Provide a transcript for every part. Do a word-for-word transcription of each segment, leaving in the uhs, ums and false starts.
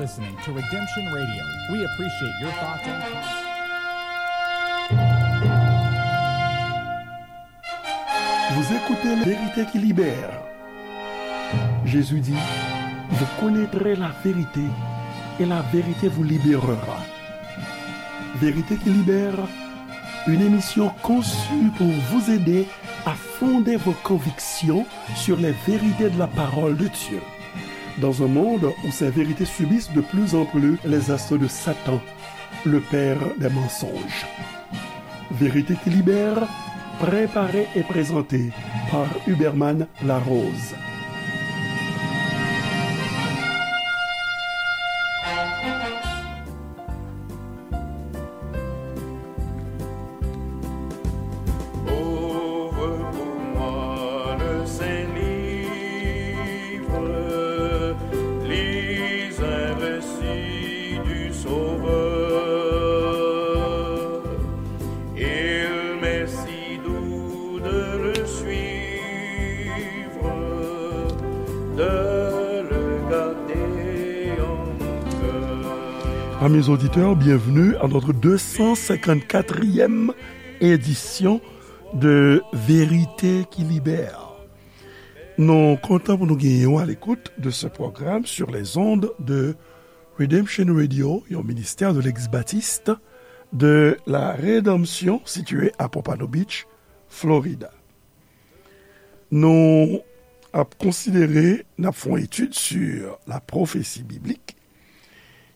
Listening to Redemption Radio. We appreciate your thoughts and comments. Vous écoutez La Vérité qui libère. Jésus dit, vous connaîtrez la vérité et la vérité vous libérera. Vérité qui libère, une émission conçue pour vous aider à fonder vos convictions sur les vérités de la parole de Dieu. Dans un monde où ces vérités subissent de plus en plus les assauts de Satan, le père des mensonges. Vérité qui libère, préparée et présentée par Huberman Larose. Ouvre pour moi le saint livre, lis un récit du Sauveur. Il m'est si doux de le suivre, de le garder en mon cœur. Amis auditeurs, bienvenue à notre deux cent cinquante-quatrième édition de Vérité qui Libère. Nou kontan pou nou genyen w à l'écoute de ce programme sur les ondes de Redemption Radio, yon ministè de l'ex-baptiste de la Rédemption situé à Pompano Beach, Florida. Nou ap konsidere, n ap fè yon etid sur la prophétie biblique.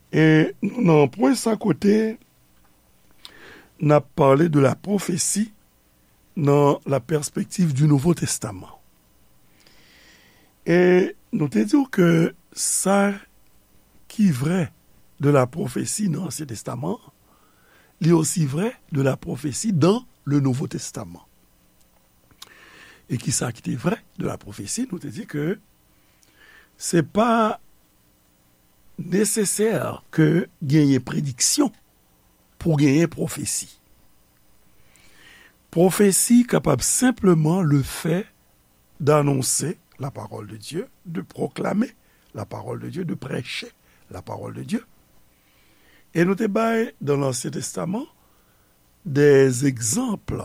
E nou nan pwen sa kote n ap pale de la prophétie dans la perspective du Nouveau Testament. E nou te di w ke sa ki vrè de la prophétie nan Ansyen Testaman, li osi vrè de la prophétie dans le Nouveau Testament. E ki sa ki te vrè de la prophétie, nou te di ke se pa nesesè ke genyen prediksyon pou genyen pwofesi. Pwofesi kapab senpleman le fait d'annoncer la parole de Dieu, de proclamer la parole de Dieu, de prêcher la parole de Dieu. E nou te bay dans l'Ancien Testament des exemples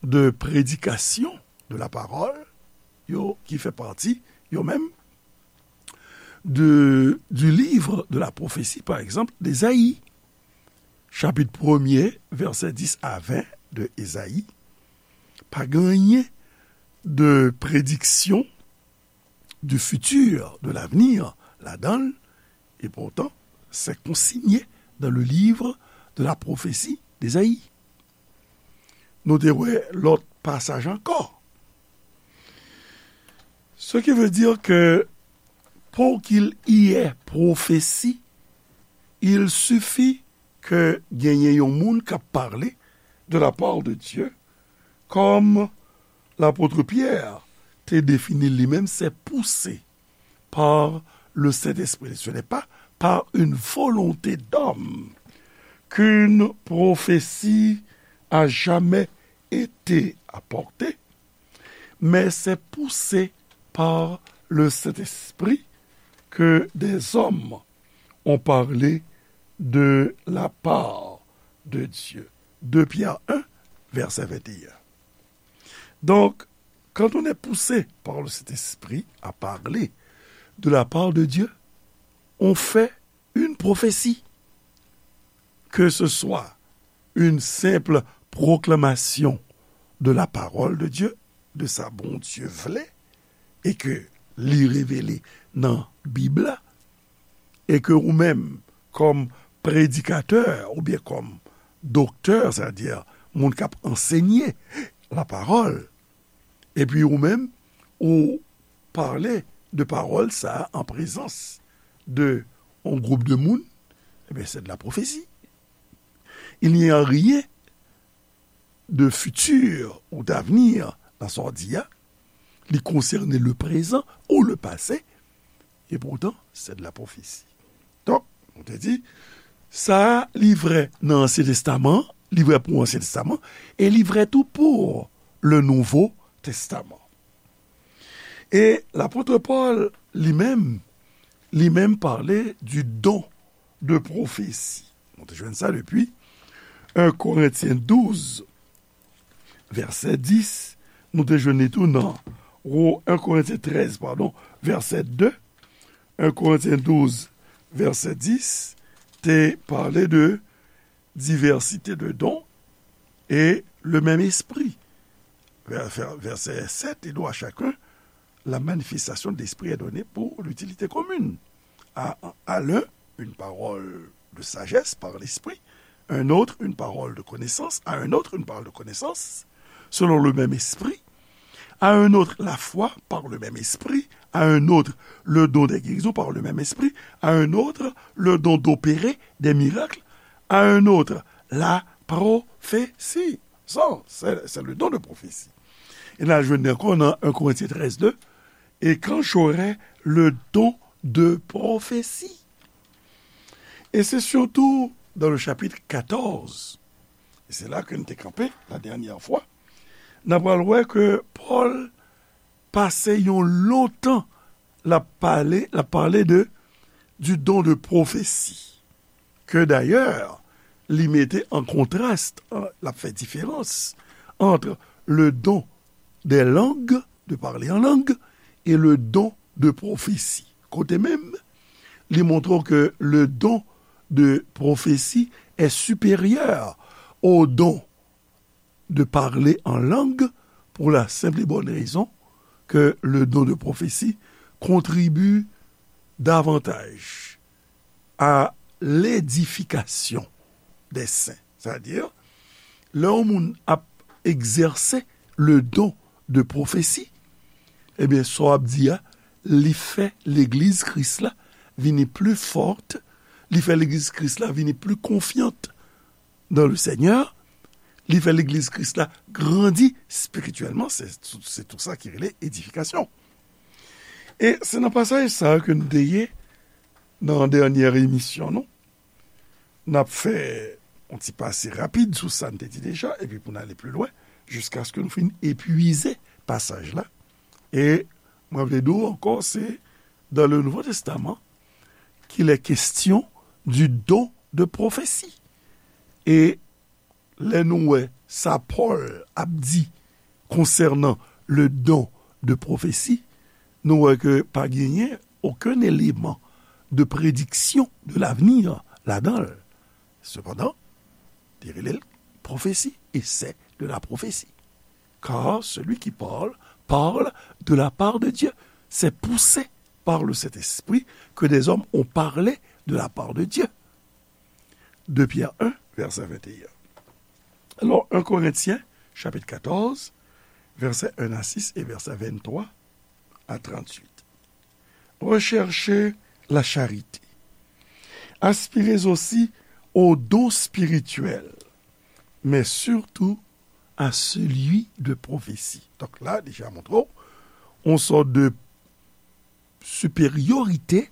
de prédication de la parole, yo ki fè pati, yo menm, de, du livre de la prophétie, par exemple, d'Ésaïe. Chapitre premier, verset dix à vingt de Ésaïe, pa gen anyen de prédiction du futur, de l'avenir, ladan l, et pourtant, c'est consigné dans le livre de la prophétie d'Ésaïe. Nou te wè lòt pasaj ankò. Ce qui veut dire que pour qu'il y ait prophétie, il suffit ke genyen yon moun k ap pale de la part de Dieu, comme l'apôtre Pierre te defini li menm, c'est poussé par le Saint-Esprit. Ce n'est pas par une volonté d'homme qu'une prophétie a jamais été apportée, mais c'est poussé par le Saint-Esprit que des hommes ont parlé de la part de Dieu. Deux Pierre un, verset vingt et un. Donc, quand on est poussé par le Saint-Esprit à parler de la part de Dieu, on fait une prophétie, que ce soit une simple proclamation de la parole de Dieu, de sa Bondye vle, e ke li revele nan Bib la, e ke ou menm, kòm predikatè oubyen kòm doktè, sètadi moun k ap ansenye lapawòl, epi ou menm, ou pale de pawòl sa a an prezans de yon gwoup de moun, ebyen, c'est de la prophétie. Il n'y a rien de futur ou d'avenir dans sa w di a. Li konsène le présent ou le passé, et pourtant, c'est de la prophétie. Donk, nou te di, sa a, li vrè nan Ansyen Testaman, li vrè pou Ansyen Testaman, e li vrè tou pou le Nouveau Testament. E lapot Pòl, li menm, li menm pale du don de prophétie. Nou te jwenn sa depi en Korentyen douz, vèsè dis. Nou te jwenn li tou nan Ro-, en Korentyen trèz, padon, vèsè de. En Korentyen douz, vèsè dis, te pale de diversité de dons et le même esprit. Vè-, vè-, vèsè sèt, et don à chacun, la manifestation de l'esprit est donnée pour l'utilité commune. À, à l'un, une parole de sagesse par l'esprit, un autre, une parole de connaissance, à un autre, une parole de connaissance, selon le même esprit, à un autre, la foi par le même esprit, à un autre, le don des guérisons par le même esprit, à un autre, le don d'opérer des miracles, à un autre, la prophétie. Ça, c'est, c'est le don de prophétie. E n al jwenn li ankò nan en Korentyen trèz de, et quand j'aurai le don de prophétie. Et c'est surtout dans le chapitre quatorze, et c'est là que nous te campé la dernière fois, n a pral wè ke Pòl pase yon lontan l ap pale, l ap pale de, du don de prophétie, ke dayè, li mete an kontras, an, l ap fè diferans entre le don des langues, de parler en langue, et le don de prophétie. Kote menm, li montre ke le don de prophétie est supérieur au don de parler en langue pour la simple et bonne raison que le don de prophétie contribue davantage à l'édification des saints. Sètadi, lè yon moun ap egzèse le don de prophétie, ebyen, sa w ap di a, li fè legliz Kris la vini pli fòt, li fè legliz Kris la vini pli konfyant dans le Seigneur, li fè legliz Kris la grandi spirityèlman, se, se tou sa ki rele edifikasyon. E se nan pasaj sa a ke nou te ye nan dènyè emisyon nou. N ap fè yon ti pase rapid sou sa n te di deja, epi pou n ale pli lwen, jiskaske nou fin epuize pasaj la. E mwen vle di w ankò, se dans le Nouveau Testament qu'il est question du don de prophétie. E lè nou wè sa Pòl ap di konsènan le don de prophétie, nou wè ke pa genyen okenn eleman de prédiction de l'avenir ladan l. Sepandan, li rele l pwofesi, et c'est de la prophétie. Car celui qui parle, parle de la part de Dieu. C'est poussé par le Saint-Esprit que des hommes ont parlé de la part de Dieu. De Pierre un, vèsè venteyen. Alò, en Korentyen, chapit katòz, vèsè en a sis e vèsè venntwa a tranntuit. Recherchez la charité. Aspirez aussi au don spirituel, mais surtout à celui de prophétie. Donk la, deja montre w, on sòt de supériorité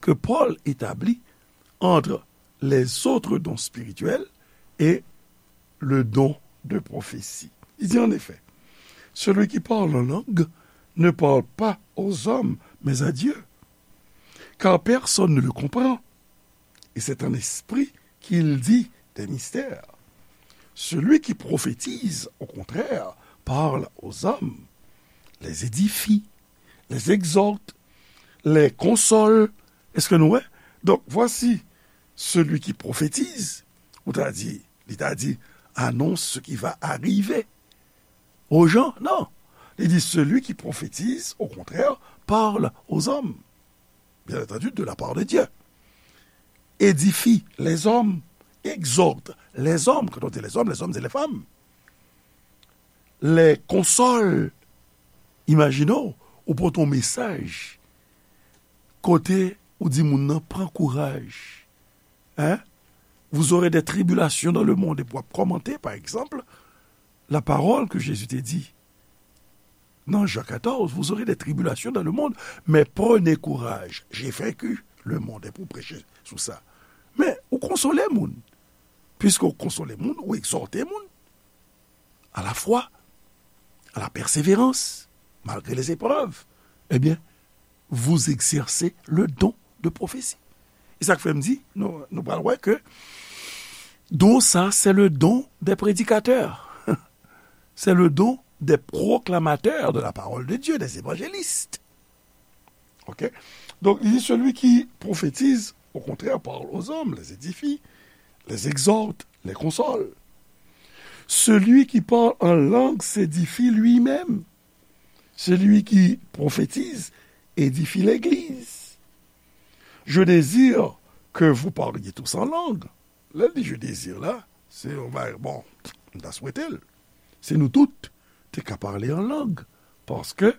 que Paul établit entre les autres dons spirituels et le don de prophétie. Il dit en effet, celui qui parle en langue ne parle pas aux hommes, mais à Dieu, car personne ne le comprend. Et c'est en esprit qu'il dit des mystères. Celui qui prophétise, au contraire, parle aux hommes, les édifie, les exhorte, les console. Èske nou wè? Donk, voici celui qui prophétise, ou ta di, li ta di, annonce ce qui va arriver aux gens. Non. Li di, celui qui prophétise, au contraire, parle aux hommes. Bien entendu, de la part de Dieu. Édifie les hommes, exhorte les hommes. Quand on dit les hommes, les hommes et les femmes. Les console. Imajine w, ou pote yon mesaj kote ou di moun nan, pran kouraj. Hein? Vous aurez des tribulations dans le monde. Epi w ap kòmante, pa egzanp, la parole que Jésus te di nan Jan katòz, vous aurez des tribulations dans le monde, mais prenez courage, j'ai vaincu le monde. Epi w preche sou sa. Men, ou konsole moun. Puisque ou konsole moun, ou egzòte moun à la foi, à la persévérance, malgré les épreuves. Eh bien, vous exercez le don de prophétie. E sa k fè m di, nou, nou pral wè ke don sa, c'est le don des prédicateurs. C'est le don des proclamateurs de la parole de Dieu, des évangélistes. OK? Donc, il dit, celui qui prophétise, au contraire, parle aux hommes, les édifie, les exhorte, les console. Celui qui parle en langue s'édifie lui-même. Celui qui prophétise édifie l'Église. Je désire que vous parliez tous en langue. Lè l di je désire la, se yon bagay, bon, m ta swete l. Se nou tout te ka pale an lang. Paske,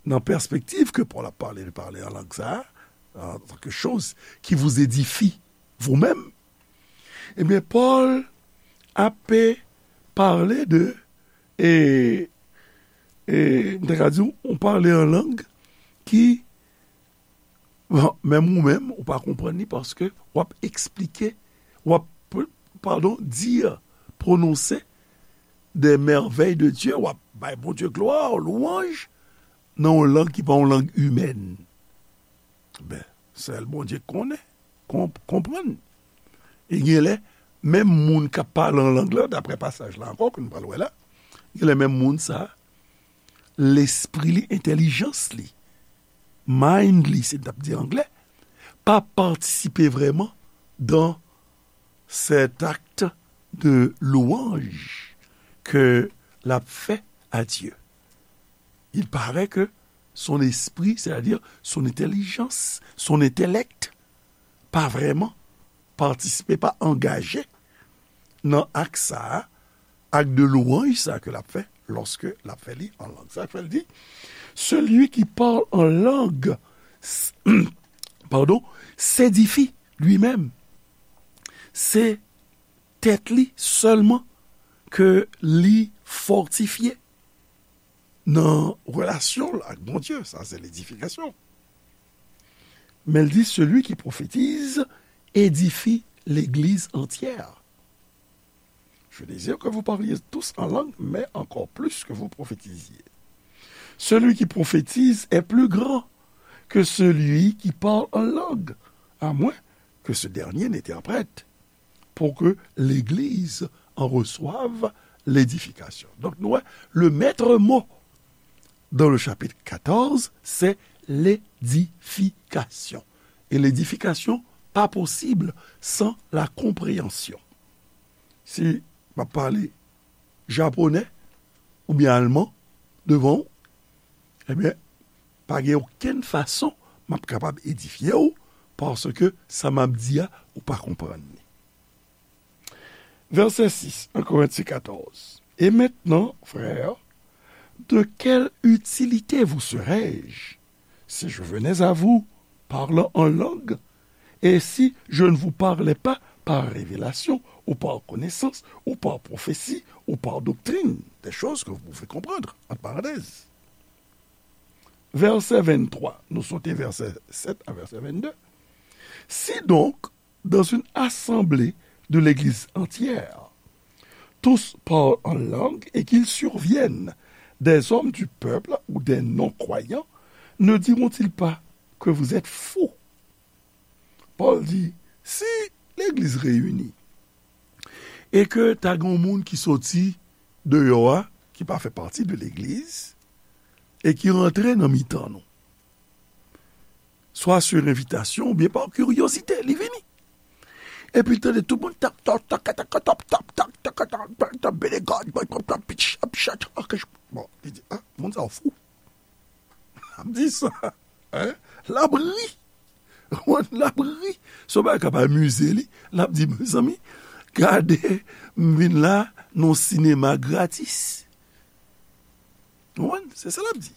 nan pèspektiv ke Pòl ap pale de pale an lang sa a, en tant que chose qui vous édifie vous-même, ebyen, Pòl ap pale de, e, e, m te ka di w, yon pale an lang ki Bon, menm ou menm, ou pa konprann li paske w ap eksplike, w ap, padon, dire, prononse des merveilles de Dieu, w ap bay Bondye glwa, lwanj, nan yon lang ki pa yon lang imèn. Ben, sèl Bondye konnen, konp-, konprann. E gen lè, menm moun k ap pale an lang lan, daprè pasaj la ankò, ke nou pral wè la, gen lè menm moun sa, lespri li, entèlijans li, mind li, se n t ap di anglè, pa patisipe vrèman dans cet acte de louange que l ap fè à Dieu. Il paraît que son esprit, c'est-à-dire son intelligence, son intellect, pa vrèman patisipe, pa angaje nan ak sa a, ak de louanj sa ke l ap fè, lòske l ap fè li an lang. Sa k fè l di, celui qui parle en langue, s-, pardon, s'édifie lui-même. Se tèt li sèlman ke li fòtifye nan relasyon l ak Bondye. Sa se ledifikasyon. Men l di, celui qui prophétise édifie l'église entière. Je désire que vous parliez tous en langue, mais encore plus que vous prophétisiez. Celui qui prophétise est plus grand que celui qui parle en langue, à moins que ce dernier n'interprète, pour que l'Église en reçoive l'édification. Donc, nou wè, le maître mot dans le chapitre quatorze, c'est l'édification. Et l'édification, pas possible sans la compréhension. Si m ap pale japonè oubyen alman devan w, ebyen, pa gen okenn fason m ap kapab edifye w, paske sa m ap di a, ou pa konprann li. Verset six, un Corinthiens quatorze. Et maintenant, frères, de quelle utilité vous serais-je si je venais à vous parlant en langue, et si je ne vous parlais pas par révélation, ou par connaissance, ou par prophétie, ou par doctrine, des choses que vous pouvez comprendre, entre parenthèses. Verset vingt-trois, nou sote verset sept a verset vingt-deux. Si donc, dans une assemblée de l'Église entière, tous parlent en langue et qu'il survienne des hommes du peuple ou des non-croyants, ne diront-ils pas que vous êtes fous? Pòl di, si legliz reyini e ke ta gen yon moun ki soti deyò a, ki pa fè pati de legliz, e ki rantre nan mitan nou, swa sur envitasyon oubyen pa kiryozite, li vini. Epi l tande tout moun tap, tap, tap, tap, tap, tap, tap, tap, tap, tap, bene God, bon, bon, bon, pitch, ap chat, ok, bon, li di, ah, moun sa yo fou. Ap di sa, hein? L ap ri. L ap ri. Se yon bagay k ap amize li. L ap di, mezanmi, gade, m vin la nan yon sinema gratis. Ou konprann? Se sa l ap di.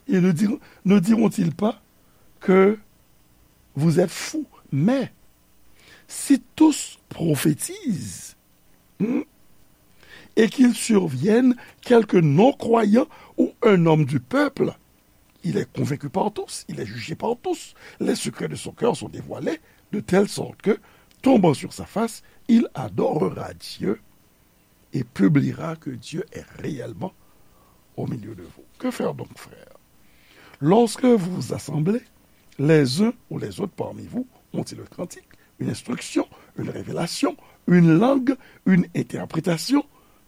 Et ne diront, ne diront-ils pas que vous êtes fous? Mais si tous prophétisent, hmm, et qu'il survienne quelque non-croyant ou un homme du peuple, il est convaincu par tous, il est jugé par tous. Les secrets de son cœur sont dévoilés, de telle sorte que, tombant sur sa face, il adorera Dieu et publiera que Dieu est réellement au milieu de vous. Que faire donc, frères? Lorsque vous vous assemblez, les uns ou les autres parmi vous ont-ils un cantique, une instruction, une révélation, une langue, une interprétation,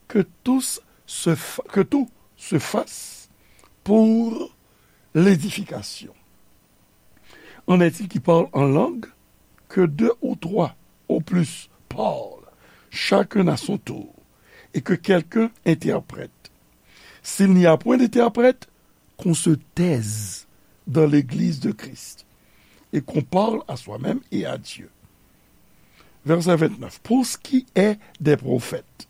que tous se fa- que tout se fasse pour l'édification. En est-il qui parle en langue, que deux ou trois au plus parlent, chacun à son tour, et que quelqu'un interprète. S'il n'y a point d'interprète, qu'on se taise dans l'église de Christ, et qu'on parle à soi-même et à Dieu. Verset vingt-neuf. Pour ce qui est des prophètes,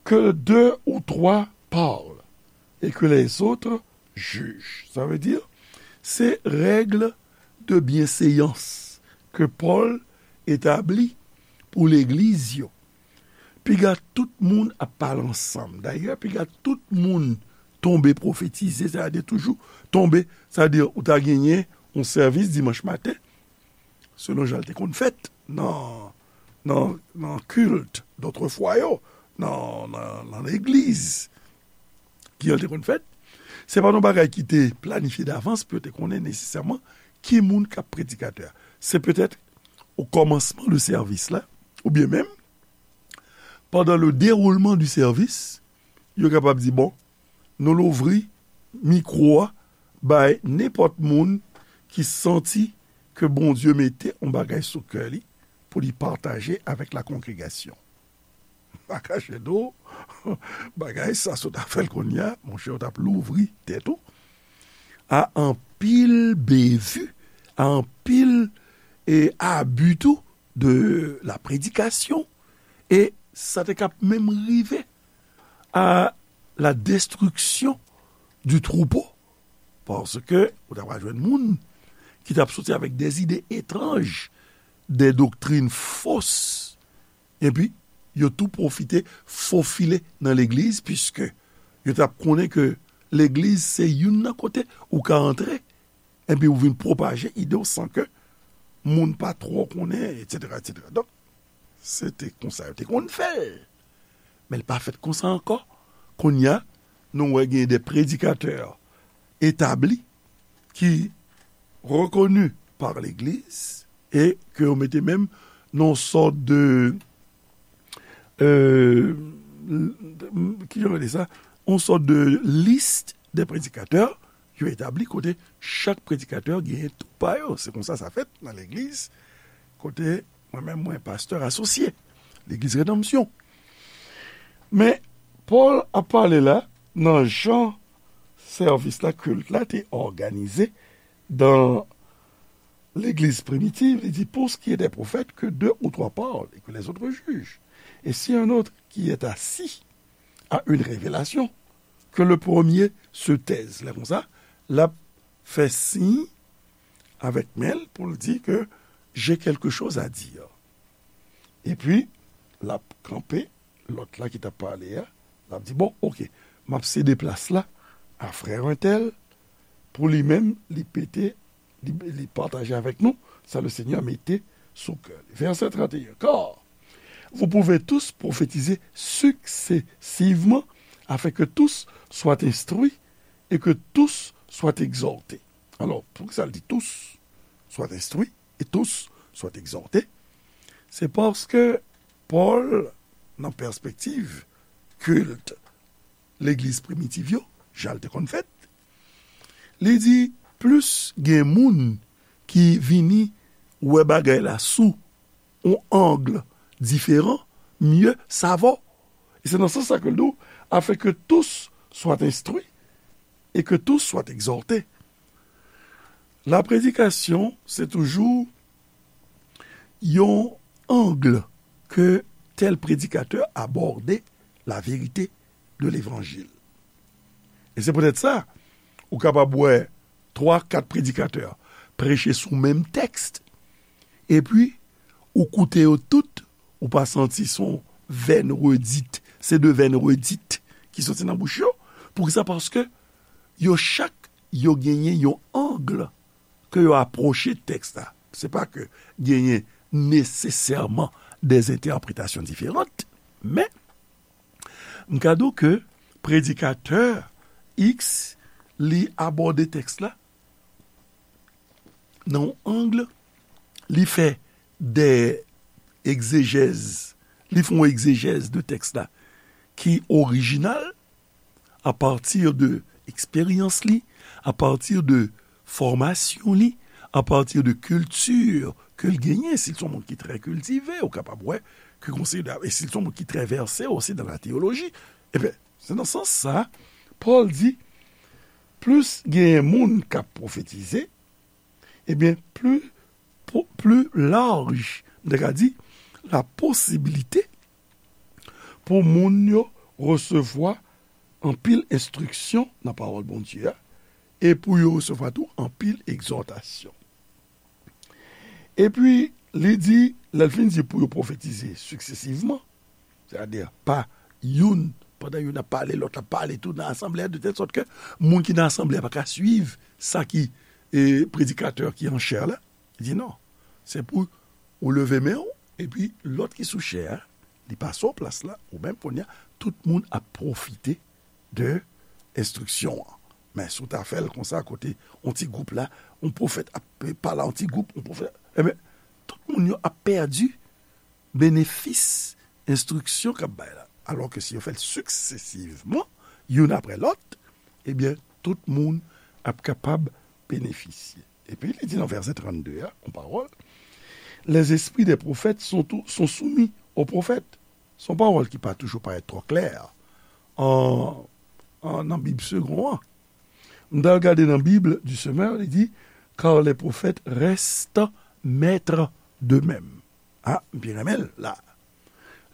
que deux ou trois parlent et que les autres jugent. Sa vle di, se règ de byenséyans ke Pòl etabli pou legliz yo. Piga tout moun ap pale ansanm. Dayè, piga tout moun tonbe pwofetize, sa vle di toujou tonbe, sa vle di ou ta genyen yon sèvis dimanch maten, selon jan l te konn fèt nan, nan, nan kilt dòtrefwa yo, nan, nan, nan legliz ki jan l te konn fèt. Se pa yon bagay ki te planifye davans pou yo te konnen nesesèman ki moun k ap predikatè a. Se petèt o kòmansman de sèvis la, oubyen menm pandan le déroulement du service, yo kapab di, bon, nou louvri mikwo a bay nenpòt moun ki santi ke Bondye mete yon bagay sou kè li pou li pataje avèk la kongregasyon. Pa kache do, bagay sa sot a fè l kounye a, monchè, w t ap louvri tèt ou a anpil bevi, a anpil e abi tou de la prédication, e sa te kap menm rive à la destruction du troupeau, paske ou ta pral jwenn moun ki t ap soti avèk des idées étranges, des doctrines fausses, epi yo tou pwofite fofile nan legliz, piske yo t ap konnen ke legliz se youn nan kote ou ka antre, epi ou vin pwopaje ide w san ke moun pa twò konnen, etsetera, etsetera. Donk, se te konsa yo te konn fè l. Men l pa fèt konsa ankò. Kounye a, nou wè gen de predikatè etabli ki rekoni pa legliz e ke yo mete menm nan yon sòt de, euh, ki jan yo rele sa, yon sòt de lis de predikatè yo etabli kote chak predikatè genyen tou pa yo. Se konsa sa fèt nan legliz kote mwen menm mwen pastè asosye, legliz Redanmsyon. Men Pòl ap pale la nan jan sèvis la, kilt la te òganize dan legliz primitiv, li di, pour ce qui est des prophètes, que deux ou trois parlent et que les autres jugent. Et si un autre qui est assis a une révélation, que le premier se taise. Lè konsa, l ap fè siy avèk men l pou l di ke j'ai quelque chose à dire. Epi, l ap kanpe, lòt la ki t ap pale a, l ap di, bon, oke, m ap sede plas la a frè entèl, pou li menm, li pete, li, li pataje avèk nou sa le Seigneur mete sou kè li. Verset trente et un. Car vous pouvez tous prophétiser successivement, afin que tous soient instruits et que tous soient exhortés. Alò, poukisa l di tous soient instruits et tous soient exhortés? Se paske Pòl, nan pèspektiv kilt legliz primitiv yo, jan l te konn fèt, li di, plis gen moun ki vini wè bagay la sou yon ang diferan, mieux ça vaut. E se nan sans sa ke l di w, afin que tous soient instruits et que tous soient exhortés. La prédication, se toujou yon ang ke tèl predikatè abòde la vérité de l'évangile. E se poutèt sa, ou kapab wè twa, kat predikatè preche sou menm tèks, epi ou koute yo tout, ou pa santi se yon vèn redit, se de vèn redit ki soti nan bouch yo. Poukisa? Paske yo chak, yo genyen yon ang ke yo apwoche tèks la. Se pa ke genyen nesesèman de entèpretasyon diferan, men m ka di w ke predikatè X, li abòde tèks la nan yon ang, li fè de egzejèz, li fè yon egzejèz de tèks la ki orijinal, apati de eksperyans li, apati de fòmasyon li, apati de kilti ke l genyen. Si l se yon moun ki trè kiltive, ou kapab wè ke konsidere, e si l se yon moun ki trè vèse osi nan la teyoloji, ebyen, se nan sans sa, Pòl di, plis genyen moun k ap pwofetize, ebyen, pli, pli laj, m ta ka di, la posibilite pou moun yo resevwa anpil enstriksyon nan pawòl Bondye a, e pou yo resevwa tou anpil egzòtasyon. Epi, li di, lè l fin di pou yo pwofetize siksesivman, sètadi pa youn, pandan youn ap pale, lòt la ap pale tou nan asanble a, de tèl sòt ke moun ki nan asanble a pa ka swiv sa ki, e, predikatè ki an chè la. Li di non, se pou ou leve men w, epi lòt ki sou chè a, li pase w plas la, ou menm kounye a, tout moun ap pwofite de enstriksyon an. Men si w ta fè l konsa, kote yon ti gwoup la, yon pwofèt ap pale a yon ti gwoup, yon pwofèt, ebyen, tout moun yo ap pèdi benefis enstriksyon k ap bay la. Alò ke si yo fè l siksesivman, youn apre lòt, ebyen, tout moun ap kapab benefisye. Epi li di nan vèsè trannde a, yon pawòl, les esprits des prophètes sont, tou- sont soumis aux prophètes. Se yon pawòl ki pa toujou parèt twò klè an, an, nan Bib Segond an. M t al gade nan Bib du Semeur, li di, car les prophètes restent maîtres d'eux-mêmes. Ah, m byen renmen l la.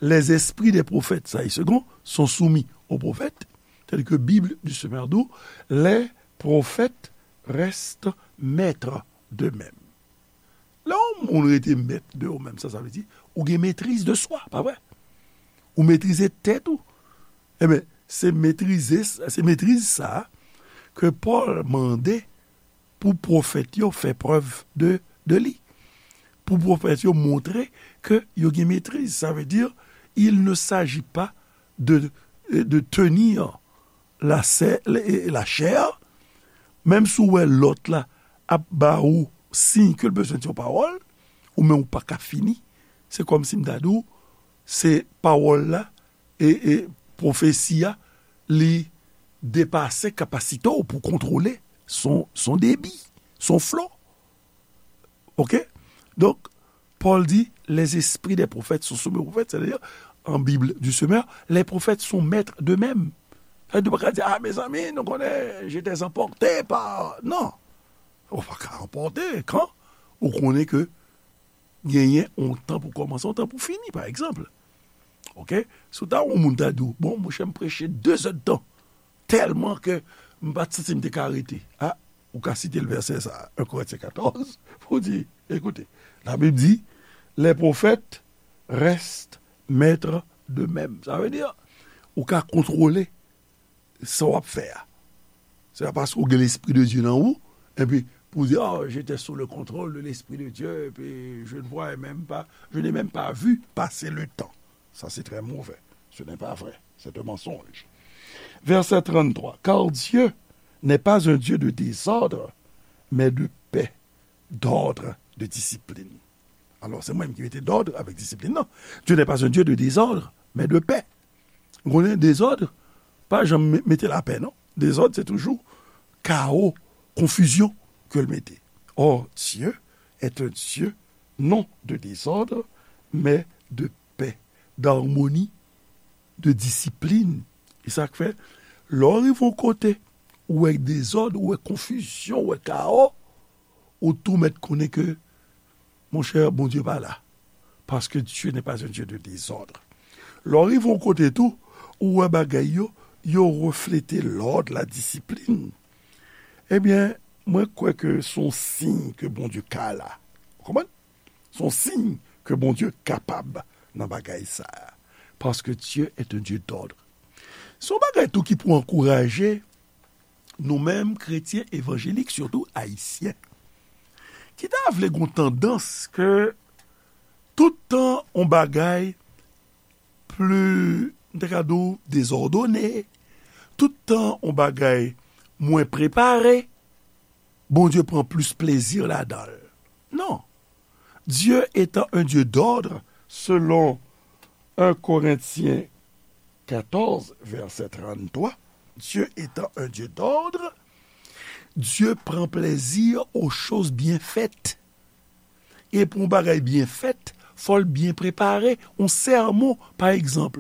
Les esprits des prophètes, sa e Segond, sont soumis aux prophètes, tandis que Bible du Semeur di w, les prophètes restent maîtres d'eux-mêmes. Lè yon moun rete mèt de ou menm, sa, sa vle di, ou gen metriz de swa, pa vre? Ou metrize tèt ou. Ebyen, se metrize, se metriz sa ke Pòl mande pou pwofèt yo fè prèv de, de li. Pou pwofèt yo montre ke yo gen metriz. Sa vle di, il ne s'agit pas de, de tenir la, la chair, menm si w wè lòt la ap ba ou siy ke l bezwen di yon pawòl, ou menm ou pa ka fini, se kòmsi m ta di w, se pawòl la, e, e pwofesi a, li depase kapasite w pou kontwole son, son debi, son flo. Oke? Donk, Pòl di, les esprits des prophètes sont soumis aux prophètes, c'est-à-dire, en Bible du Semeur, les prophètes sont maîtres d'eux-mêmes. Sa vle di, ou pa ka di, ah, mezanmi, nou konnen, j'étais emporté par, non. Ou pa ka anpòte, kan ou konnen ke genyen yon tan pou kòmanse, yon tan pou fini, pa egzanp. Oke? Si w ta yon moun ta di w, bon, monchè, m preche de zèdtan, tèlman ke m pa t santi m te ka rete. Ah, ou ka site l vèsè sa, en Korentyen katòz, pou di, écoutez, la Bible dit, les prophètes restent maîtres d'eux-mêmes. Sa vle di, ou ka kontwole sa w ap fè a. Se pa paske w gen Lespri de Dye nan ou, epi pou w di, oh, j'étais sous le contrôle de l'Esprit de Dieu, et puis je ne voyais même pas, je n'ai même pas vu passer le temps. Ça, c'est très mauvais. Ce n'est pas vrai. C'est un mensonge. Verset trente-trois. Car Dieu n'est pas un Dieu de désordre, mais de paix, d'ordre, de discipline. Alors, c'est moi qui mets d'ordre avec discipline. Non, Dieu n'est pas un Dieu de désordre, mais de paix. Ou konnen dezòd pa janm me- mete lapè, non. Dezòd, se toujou kawo, konfizyon ke l mete. Or, Dieu est un Dieu non de désordre, mais de paix, d'harmonie, de discipline. E sa k fè, lè w rive yon kote, ou wè dezòd, ou wè konfizyon, ou wè kawo, ou tou mèt konnen ke, monchè, Bondye pa la. Parce que Dieu n'est pas un Dieu de désordre. Lè w rive yon kote tou, ou wè bagay yo, yo reflete lòd, la disiplin. Ebyen, mwen kwè ke se yon siy ke Bondye ka la. Ou konprann? Se yon siy ke Bondye kapab nan bagay sa a. Parce que Dieu est un Dieu d'ordre. Se yon bagay tou ki pou ankouraje nou menm kretyen evanjelik, sitou ayisyen, ki ta vle gon tandans ke tout tan yon bagay pli, m ta ka di w, dezòdone, tout tan yon bagay mwen prepare, Bondye pran plis plezi ladan l. Non. Dieu étant un Dieu d'ordre, selon un Corinthiens quatorze, verset trente-trois, Dieu étant un Dieu d'ordre, Dieu prend plaisir aux choses bien faites. E pou yon bagay byen fèt, fò l byen prepare. Yon sèmon, pa egzanp,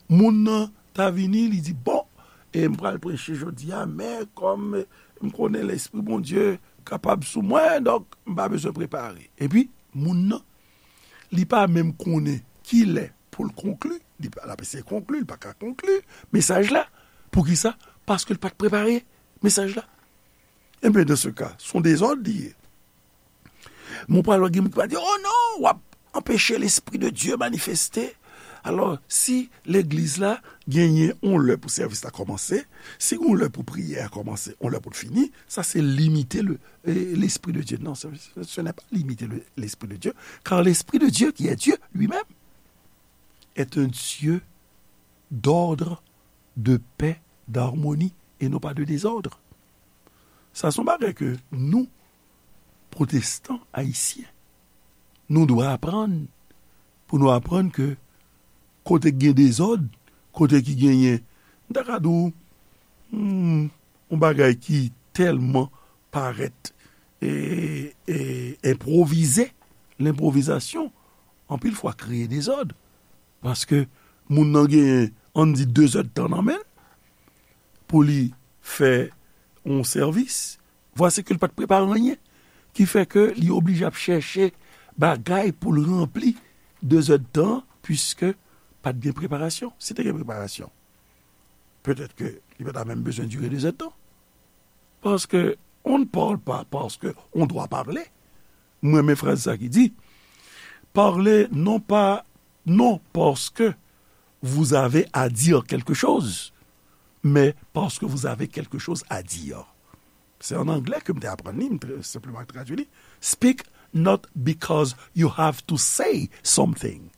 moun nan ta vini, li di, bon, e m pral preche jodi a, men kòm m konnen Lespri Bondye kapab sou mwen, donk m pa bezwen prepare. Epi, moun nan, li pa menm konnen kilè pou l konkli, li pa, l ap eseye konkli, li pa ka konkli mesaj la. Poukisa? Paske l pa t prepare mesaj la. Ebyen, dans ce cas, se yon dezòd li ye. Mwen pral wè gen moun ki va di, oh non, w ap anpeche Lespri de Dye manifeste. Alò, si legliz la genyen yon lè pou sèvis la kòmanse, si yon lè pou priyè a kòmanse, yon lè pou l fini, sa se limite le, eh, Lespri de Dye. Non, ce, ce n'est pas limiter le- l'Esprit de Dieu, car l'Esprit de Dieu, qui est Dieu lui-même, est un Dieu d'ordre, de paix, d'harmonie, et non pas de désordre. Sa se yon bagay ke nou, pwotestan ayisyen, nou dwe aprann, pou nou aprann ke kote k gen dezòd, kote ki genyen, m ta ka di w, hmm, yon bagay ki tèlman parèt e, e enpwovize, lenpwovizasyon, anpil fwa kreye dezòd. Paske moun nan genyen, ann di, de zèdtan nan men l pou li fè yon sèvis, vwasi ke l pa t prepare anyen, ki fè ke li oblije ap chèche bagay pou l ranpli de zèdtan, piske pa t gen preparasyon. Si te gen preparasyon, petèt ke li pa ta menm bezwen dire de zèdtan. Parce que on ne parle pas parce que on doit parler. Mwen renmen fraz sa ki di, parlez non pas, non parce que vous avez à dire quelque chose, mais parce que vous avez quelque chose à dire. Se an anglè ke m te aprann li, m te senpleman tradui li. Speak not because you have to say something,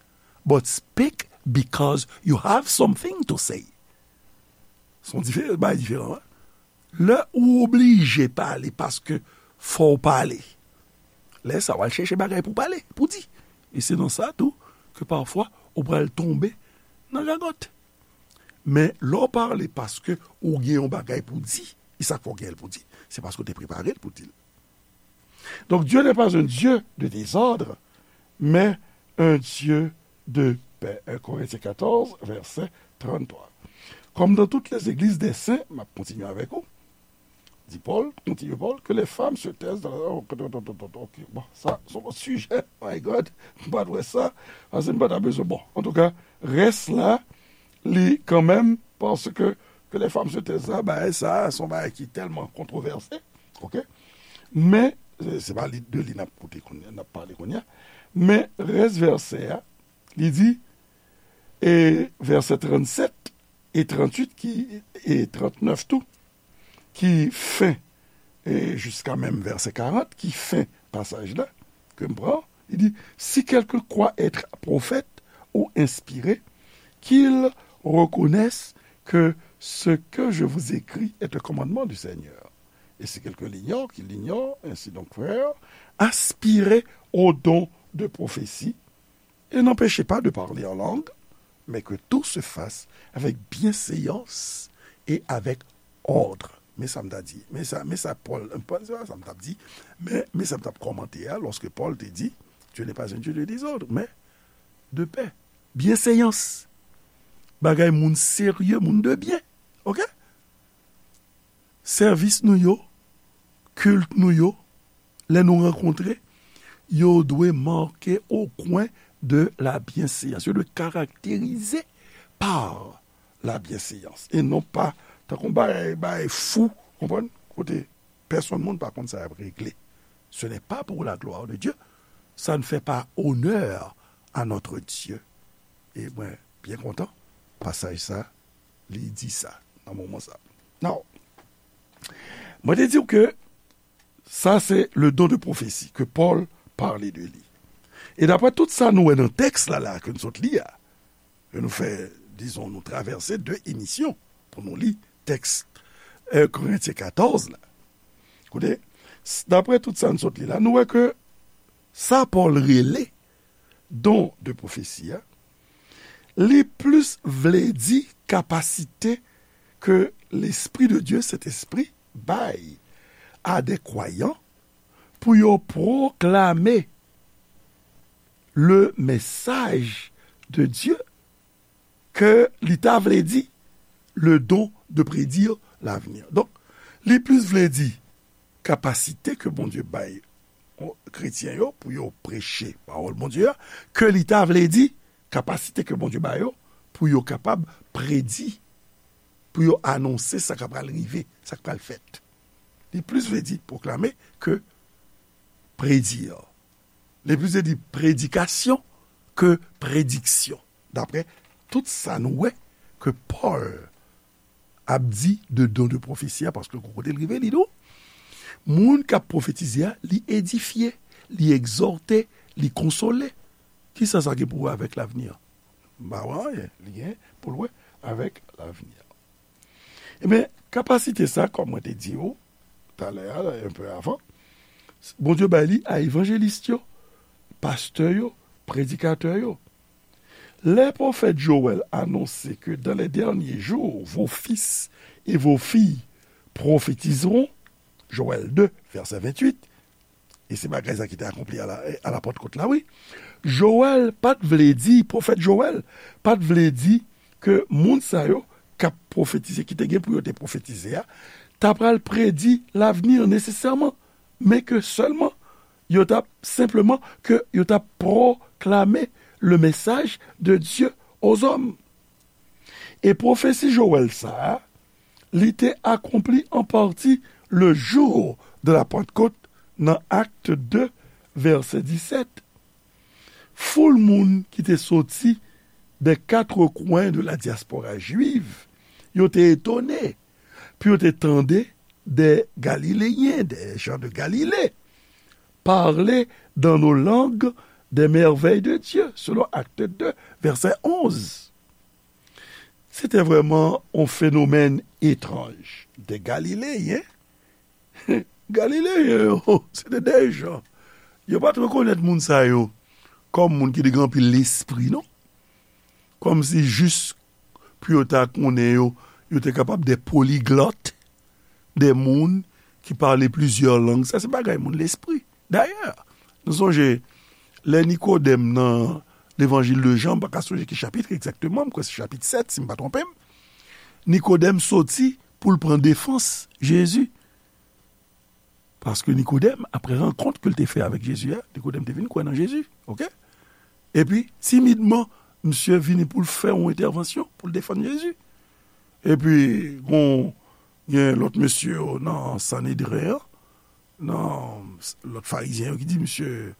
but speak because you have something to say. Se yon diferan, bay diferan, wi. Lè ou oblije pale paske fò w pale, lè sa w al chèche bagay pou pale, pou di. E se nan sa tou ke pafwa ou pral tonbe nan gagòt. Men lè w pale paske ou gen yon bagay pou di, e sa k fè w gen l pou di, se paske w te prepare l pou di l. Donc Dieu n'est pas un Dieu de désordre, mais un Dieu de paix. Un Corinthiens quatorze, verset trente-trois. Comme dans toutes les églises des saints, m ap kontinye avèk ou, di Pòl, kontinye Pòl, que les femmes se taisent dans la... Ok, bon, sa, se yon lòt sijè, my God, m pa t wè sa, paske m pa ta bezwen, bon, antouka, rès la, li kanmenm, paske que les femmes se taisent la, bagay sa, se yon bagay ki tèlman kontwovèse, ok? Men, se, se pa li, de li n ap koute kounye a, n ap pale kounye a, men rès vèsè a, li di, e vèsè trannsèt e trannuit ki, e trannèf tou, ki fen, e jiska menm vèsè karant, ki fen pasaj la, ke m pran, li di, si quelqu'un croit être prophète ou inspiré, qu'il reconnaisse que ce que je vous écris est un commandement du Seigneur. Et si quelqu'un l'ignore, qu'il l'ignore, ainsi donc, frères, aspirez au don de prophétie, et n'empêchez pas de parler en langue, mais que tout se fasse avec bienséance et avec ordre. Men sa m ta di, men sa, men sa Pòl, se pa sa m t ap di, men, men sa m t ap kòmante a, lòske Pòl te di, Dieu n'est pas un Dieu de désordre, mais de paix. Byenséyans. Bagay moun serye, moun de byen. Ok? Sèvis nou yo, kilt nou yo, lè nou rankontre, yo dwe marqué au coin de la bienséance. Yo dwe karakterize par la bienséance. E non pa, tankou bagay, bagay fou, konprann? Kote pèsonn moun pa konn sa y ap regle. Ce n'est pas pour la gloire de Dieu. Ça ne fait pas honneur à notre Dieu. E mwen byen kontan, pasaj sa, li di sa, nan moman sa. Now, mwen te di w ke sa se le don de prophétie ke Pòl pale de li. E daprè tout sa nou wè nan tèks la, la, ke nou sot li a, ke nou fè, dizon, nou travèse de emisyon pou nou li tèks, euh, Korentyen katòz la. Koute, s-, daprè tout sa nou sot li la, nou wè ke Sa Pòl rele don de pwofesi a, li plis vle di kapasite ke Lespri de Dye, Sentespri, bay a de kwayan pou yo pwoklame le message de Dieu ke li ta vle di le don de prédire l'avenir. Donk, li plis vle di kapasite ke Bondye bay kretyen yo pou yo preche pawòl Bondye a, ke li ta vle di kapasite ke Bondye ba yo pou yo kapab predi, pou yo anonse sa k pral rive, sa k pral fèt. Li plis vle di pwoklame ke predi. Li plis vle di predikasyon ke prediksyon. Daprè tout sa nou wè ke Pòl ap di de don de pwofesi a, paske gon kote l rive, li di w, moun k ap pwofetize a, li edifye, li egzòte, li konsole. Kisa sa gen pou wè avèk lavni an? M pa wè anyen li gen pou l wè avèk lavni an. Ebyen, kapasite sa, kòm mwen te di w talè a, un peu avant, Bondye bay li a evanjelis yo, pastè yo, predikatè yo. Lè pwofèt Jowèl anonse ke dans les derniers jours, vos fils et vos filles prophétiseront, Joël deux, verset vingt-huit, e se bagay sa ki te akonpli a la, a la Pantkot la, wi. Jowèl pa t vle di, pwofèt Jowèl pa t vle di ke moun sa yo k ap pwofetize, ki te gen pou yo te pwofetize a, ta pral predi lavni an nesesèman, men ke sèlman yo t ap, senpleman, ke yo t ap pwoklame le message de Dieu aux hommes. E pwofesi Jowèl sa a, li te akonpli an pati le jour de la Pentecôte nan Acte deux, verset dix-sept. Foul moun ki te soti des quatre coins de la diaspora juive, yo te etone pou yo te tande des Galiléens, des gens de Galilée, parler dans nos langues des merveilles de Dieu, selon Acte deux, verset onze. Se te vrèman yon fenomèn etranj. De Galileyen, Galileyen yo, se te de jan. Yo pa t rekonèt moun sa yo kòm moun ki te gen anpil lespri, non. Kòmsi jis pou yo ta konnen yo, yo te kapab de poliglòt, de moun ki pale plizyè lang. Sa se bagay moun lespri. Dayè, nou sonje, lè Nikodèm nan Levanjil de Jan, m pa ka sonje ki chapit egzakteman, m kwè se chapit sèt, si m pa twonpe m, Nikodèm soti pou l pran defans Jezi. Paske Nikodèm, apre rankont ke l te fè avèk Jezi a, Nikodèm te vin kwè nan Jezi, oke? Epi, timidman, misye vini pou l fè yon entèvansyon, pou l defann Jezi. Epi, gon, gen lòt mesye yo nan Sanedren an, nan lòt farizyen yo ki di, misye,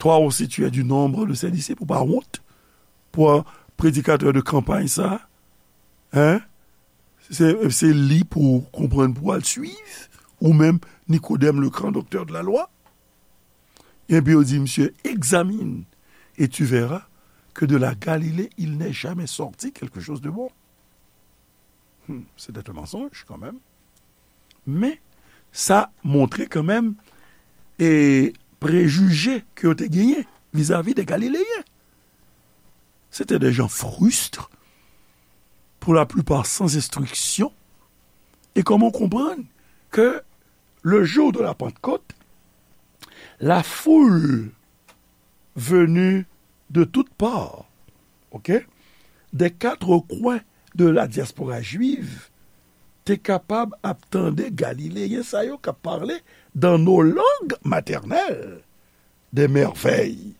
toi aussi tu es du nombre de ses disciples, ou pa wont pou predikatè de kanpay sa, hein? Se, se li pou w konprann, pou w al swiv, ou menm, Nikodèm, le grand docteur de la loi. Epi yo di, misye, examine, et tu verras que de la Galilée, il n'est jamais sorti quelque chose de bon. Hmm, c'était un mensonge quand même. Men, sa montre kanmenm e prejije ke yo te genyen vizavi de Galileyen. Se te de jan fristre, pour la plupart sans instruction. Et comment comprendre que le jour de la Pentecôte, la foule venue de toutes parts, ok, des quatre coins de la diaspora juive, te kapab ap tande Galileyen sa yo k ap pale dans nos langues maternelles des merveilles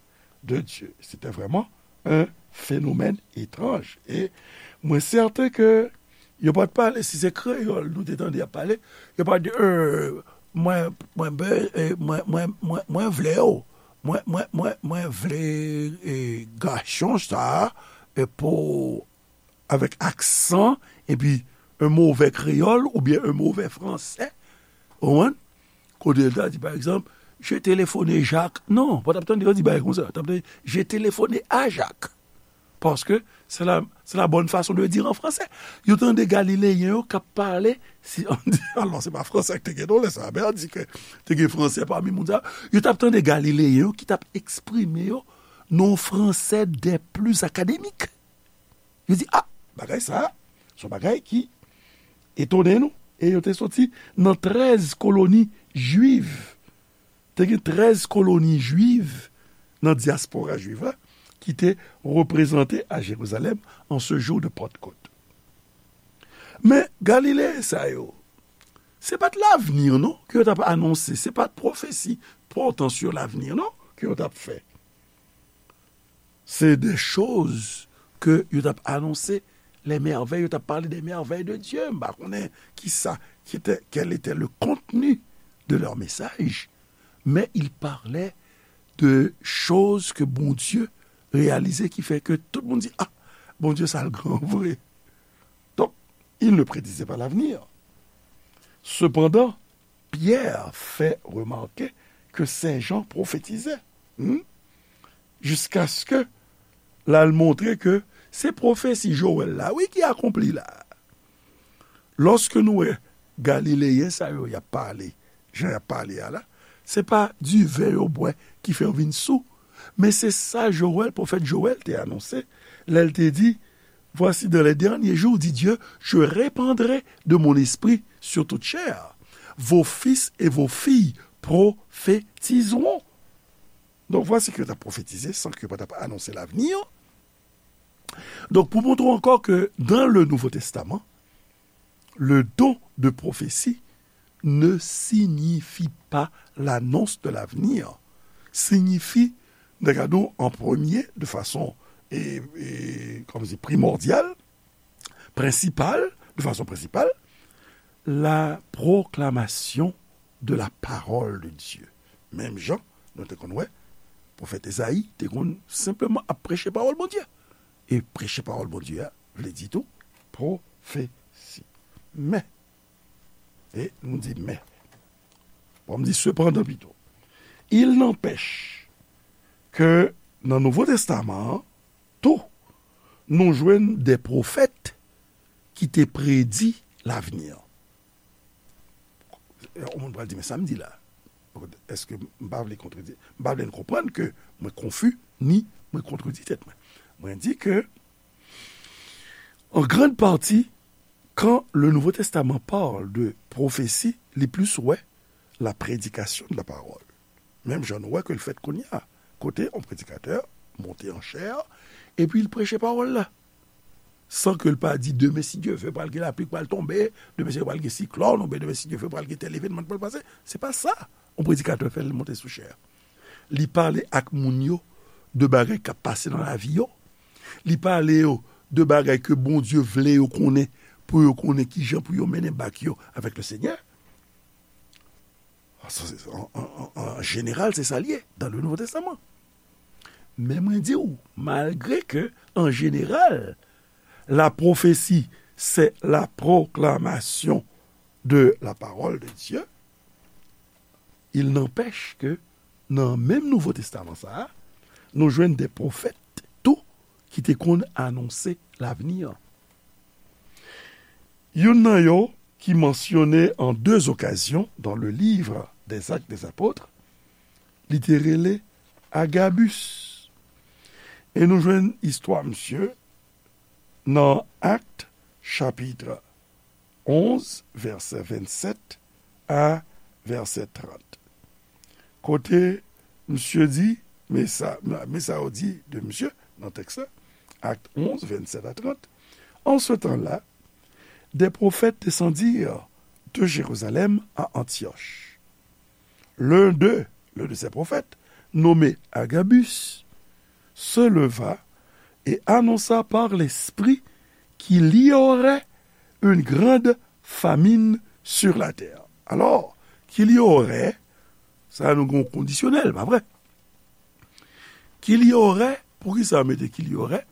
de Dieu. Se te vrèman un fenomèn etranj. E mwen sèten ke yo pa t pale, si se kreyòl nou te tande y ap pale, yo pa t di, euh, mwen, mwen, be- eh, mwen, mwen, mwen, mwen vle w. Mwen, mwen, mwen, mwen vle eh, gason sa eh, pou, avèk aksan, epi un mauvais créole oubyen un mauvais français. Ou konprann? Kote l ta di, pa egzanp, j'ai téléphoné Jacques. Non, pa t ap tande yo di bagay konsa. T ap tande, j'ai téléphoné à Jacques. Paske c'est la, c'est la bonne façon de dire en français. Yo tande Galileyen yo k ap pale, si, alò, se pa fransè k te gen non lè sa, men an di ke te gen fransè pami moun sa yo. Yo t ap tande Galileyen yo ki t ap eksprime yo nan yon fransè des plus académiques. Yo di, a, bagay sa, se yon bagay ki etone nou. E yo te soti nan trèz koloni jwiv. Te gen trèz koloni jwiv nan dyaspora jwiv la ki te reprezante a Jerizalèm an se jou de Pantkot. Men Galileyen sa yo, se pa t lavni non ke yo t ap anonse, se pa t pwofesi pòtan sur lavni non ke yo t ap fè. Se de choz ke yo t ap anonse, les merveilles, yo t ap pale des merveilles de Dieu. M pa konnen kisa ki te, quel était le contenu de leur message, mais ils parlaient de choses que Bondye reyalize ki fè ke tout moun di, a, Bondye sa l gran vre. Donk, il ne prédisait pas l'avenir. Sepandan, Pyè fè remake ke Sen Jan pwofetize, hmm, jiskaske l al montre ke se pwofesi Jowèl la, wi, ki akonpli la. Lòske nou wè Galileyen sa yo y ap pale, jan y ap pale a la, se pa diven yo bwè ki fè yo vin sou, men se sa Jowèl, pwofèt Jowèl te anonse lè l te di, Voici, dans les derniers jours, dit Dieu, je répandrai de mon esprit sur toute chair. Vos fils et vos filles prophétiseront. Donk, vwasi ke yo t ap pwofetize san ke yo pa t ap anonse lavni. Donk, pou montre ankò ke dans le Nouveau Testament, le don de prophétie ne signifie pas l'annonce de l'avenir. Siyifi, nan gade w, an premye, de fason, e, e, kòm se primòdyal, prensipal, de fason prensipal, la proclamation de la parole de Dieu. Menm jan nou te konn wè, pwofèt Ezayi te konn senpleman ap preche pawòl Bondye. E preche pawòl Bondye a vle di tou pwofesi. Men, e nou di men. Bon, m di sepandan pito. Il n'empêche ke nan Nouvo Testaman an, tou, nou jwenn de pwofèt ki te predi lavni an. Yon moun pral di, men sa m di la, èske m pa vle kontredi, m pa vle n konprann ke mwen konfi, ni mwen kontredi tèt mwen. Mwen di ke, en grande partie, quand le Nouveau Testament parle de prophétie, li plis wè la prédication de la parole. Menm jan nou wè ke l fèt kounye a, kote yon predikatè monte an chè, epi l preche pawòl la. San ke l pa di, demen, si Dye vle, pral gen lapli k pral tonbe, demen, si Dye vle, pral gen siklòn, oubyen demen, si Dye vle, pral gen tèl evènman k pral pase. Se pa sa yon predikatè fè lè l monte sou chè a. Li pale ak moun yo de bagay k ap pase nan lavi yo. Li pale yo de bagay ke Bondye vle yo konnen, pou yo konnen kijan pou yo mennen bak yo avèk le Senyè. An, an, an, an jeneral, se sa l ye dans le Nouveau Testament. Men mwen di w, malgre ke, an jeneral, la prophétie, c'est la proclamation de la parole de Dieu, il n'empêche que nan menm Nouvo Testaman sa a, nou jwenn de pwofèt tou ki te konn anonse lavni an. Youn nan yo ki mansyone en deux occasions dans le livre des Actes des Apôtres, li te rele Agabus. E nou jwenn istwa misye nan Actes chapitre onze, vèsè vennsèt a vèsè trant. Kote misye di, men sa, men sa yo di de misye nan tèks la, Actes onze, vingt-sept à trente. En ce temps-là, des prophètes descendirent de Jérusalem à Antioche. L'un d'eux, l'un de ces prophètes, nommé Agabus, se leva et annonça par l'Esprit qu'il y aurait une grande famine sur la terre. Alors, qu'il y aurait, sa nou gen kondisyonèl, pa vre? Qu'il y aurait, poukisa yo mete qu'il y aurait?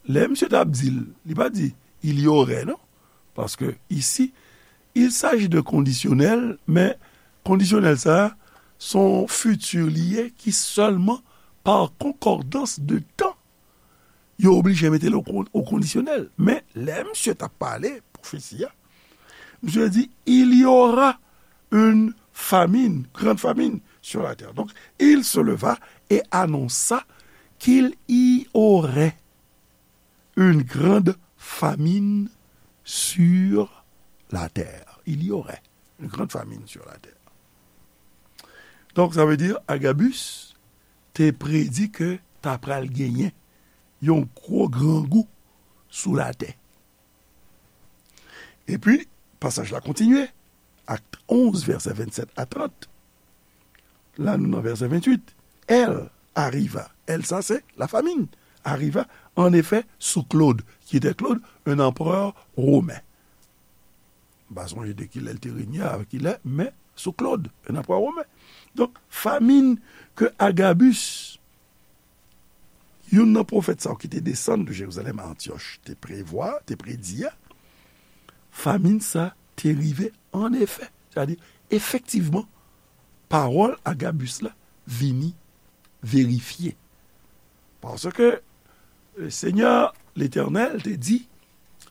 Lè misye t ap di l, li pa di il y aurait, non. Paske isi, il s'agit de kondisyonèl, men kondisyonèl sa a, se yon fiti li ye ki sèlman par concordance de temps yo oblije mete l o kon-, o kondisyonèl. Men, lè misye t ap pale pwofesi a, misye di, il y aura une famine, grande famine sur la terre. Donc, il se leva et annonça qu'il y aurait une grande famine sur la terre. Il y aurait une grande famine sur la terre. Donk, sa vle di, Agabus te predi ke ta pral genyen yon gwo grangou sou latè. Epi, pasaj la kontinye, Akt onz, vèsè vennsèt a trant. La, nou nan vèsè venntuit. Elle arriva. Elle, sa se la famine. Arriva, en effet, sous Claude. Qui était Claude? Un empereur romain. M pa sonje de kilè l te renye, a kilè, men sou Claude, un empereur romain. Donk, famin ke Agabus, youn nan pwofèt sa yo ki te desann de Jerizalèm a Antyòch, te prevwa, te predi a, famin sa te rive an efè. Sètadi, efektivman, pawòl Agabus la vini verifye. Paske, e, Senyè Letènèl te di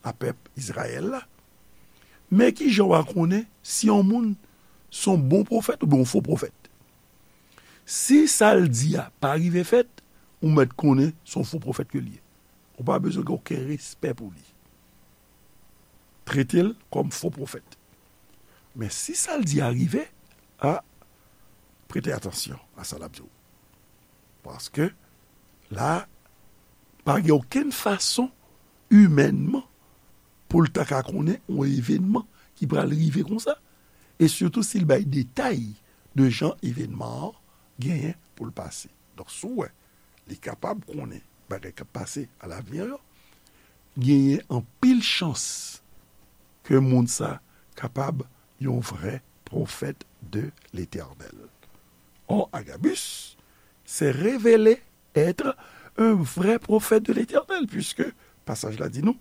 a pèp Izrayèl la, men ki jan w a konnen si yon moun se yon bon pwofèt oubyen yon fo pwofèt? Si sa l di a pa rive fèt, ou mèt konnen se yon fo pwofèt ke l ye. Ou pa bezwen gen okenn respè pou li. Trete l kòm fo pofèt. Men si sa l di a rive, a, prete atansyon a sa l ap di w. Paske la, pa gen okenn fason imènman pou l ta ka konnen yon evènman ki pral rive konsa, e sitou si l bay detay de jan evènman an genyen pou l pase. Donk, si w wè li kapab konnen bagay k ap pase alavni yo, genyen anpil chans ke moun sa kapab yon vrè pwofèt de Letènèl. Or, Agabus s'est révélé être un vrai prophète de l'Éternel, puisque pasaj la di nou,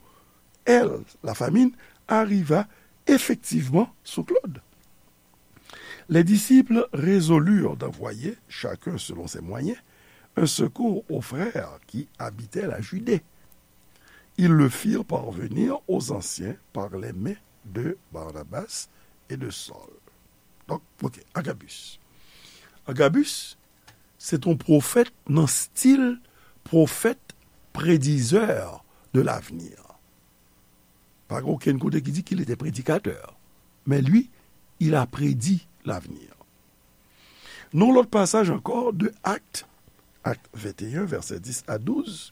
elle, la famine, arriva effectivement sous Claude. Les disciples résolurent d'envoyer, chacun selon ses moyens, un secours aux frères qui habitaient la Judée. Ils le firent parvenir aux anciens par les mains de Barnabas et de Saul. Donk, ok, Agabus. Agabus, se t yon pwofèt nan stil pwofèt predizè de l'avenir. Pa gen okenn kote ki di qu'il était prédicateur. Mais lui, il a prédit l'avenir. Nan lòt pasaj ankò de Akt, Akt venteyen, vèsè dis a douz,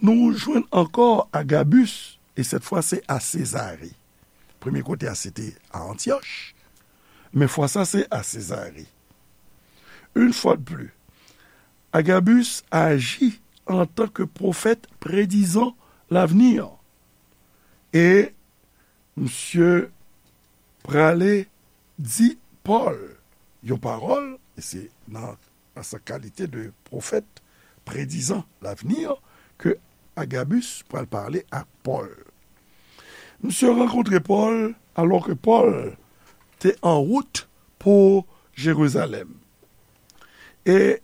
nou jwenn ankò Agabus, e sèt fwa se a Sezare. Premye kote a se te a Antyòch, men fwa sa se a Sezare. Une fois de plus, Agabus aji antanke pwofèt predizan l'avenir. E misye prale di Pòl yon pawòl, e se nan, nan sa kalite de pwofèt predizan l'avenir ke Agabus pral pale ak Pòl. Misye rankontre Pòl alò ke Pòl te an wout pou Jerizalèm. E